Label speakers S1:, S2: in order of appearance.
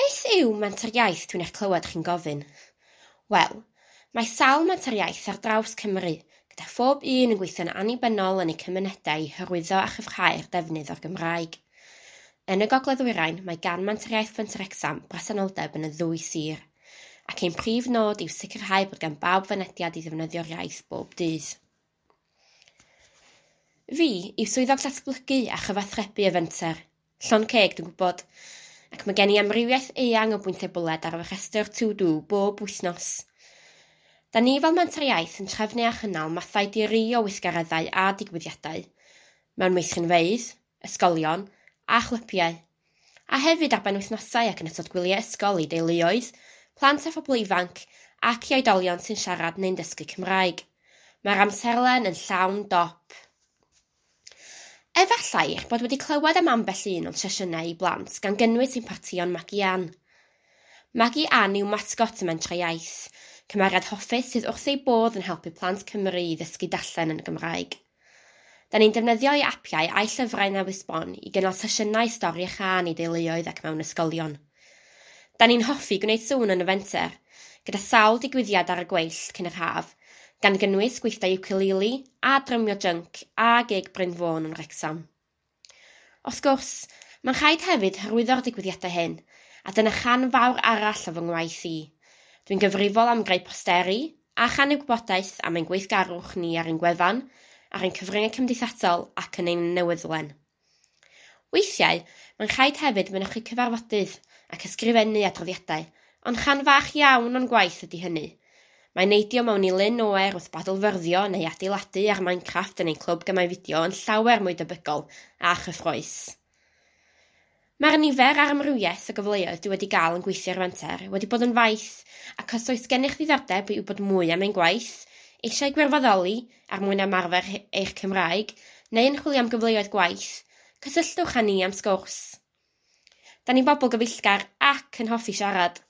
S1: Beth yw Menter Iaith dwi'n eich clywed chi'n gofyn? Wel, mae sawl Menter Iaith ar draws Cymru, gyda phob un yn gweithio'n annibynnol yn eu cymunedau i hyrwyddo a chryfhau'r defnydd o'r Gymraeg. Yn y Gogledd-ddwyrain, mae gan Menter Iaith Fenter Wrecsam bresenoldeb yn y ddwy sir, ac ein prif nod yw sicrhau bod gan bawb fynediad i ddefnyddio'r iaith bob dydd. Fi yw swyddog datblygu a chyfathrebu y Fenter. Llond ceg, dwi'n gwybod. Ac mae gen i amrywiaeth eang o bwyntiau bwled ar fy rhestr to-do bob wythnos. Da ni fel Menter Iaith yn trefnu a chynnal mathau di-ri o weithgareddau a digwyddiadau, mewn meithrinfeydd, ysgolion a chlybiau, a hefyd ar benwythnosau ac yn ystod gwyliau ysgol i deuluoedd, plant a phobl ifanc ac i oedolion sy'n siarad neu'n dysgu Cymraeg. Mae'r amserlen yn llawn dop. Efallai eich bod wedi clywed am ambell un o'n sesiynau i blant, gan gynnwys ein partïon Magi Ann. Magi Ann yw masgot y Mentrau Iaith, cymeriad hoffus sydd wrth ei bodd yn helpu plant Cymru i ddysgu darllen yn y Gymraeg. Da ni'n defnyddio ei apiau a'i llyfrau newydd sbon i gynnal sesiynau stori a chân i deuluoedd ac mewn ysgolion. Da ni'n hoffi gwneud sŵn yn y fenter, gyda sawl digwyddiad ar y gweill cyn yr haf, gan gynnwys gweithdai ukulele a drymio jync a gig Bryn Fôn yn Wrecsam. Wrth gwrs, mae'n rhaid hefyd hyrwyddo'r digwyddiadau hyn, a dyna chan fawr arall o fy ngwaith i. Dwi'n gyfrifol am greu posteri a channu gwybodaeth am ein gweithgarwch ni ar ein gwefan, ar ein cyfryngau cymdeithasol ac yn ein newyddlen. Weithiau, mae'n rhaid hefyd mynychu cyfarfodydd ac ysgrifennu adroddiadau, ond chan fach iawn o'n gwaith ydy hynny. Mae neidio mewn i lyn oer wrth badlfyrddio neu adeiladu ar Minecraft yn ein clwb gemau fideo yn llawer mwy debygol a chyffrous. Mae'r nifer a'r amrywiaeth o gyfleoedd dwi wedi gael yn gweithio ar Fenter wedi bod yn faith, ac os oes gennych ddiddordeb i wybod mwy am ein gwaith, eisiau gwirfoddoli er mwyn ymarfer eich Cymraeg, neu yn chwilio am gyfleoedd gwaith, cysylltwch â ni am sgwrs. Da ni'n bobl gyfeillgar ac yn hoffi siarad.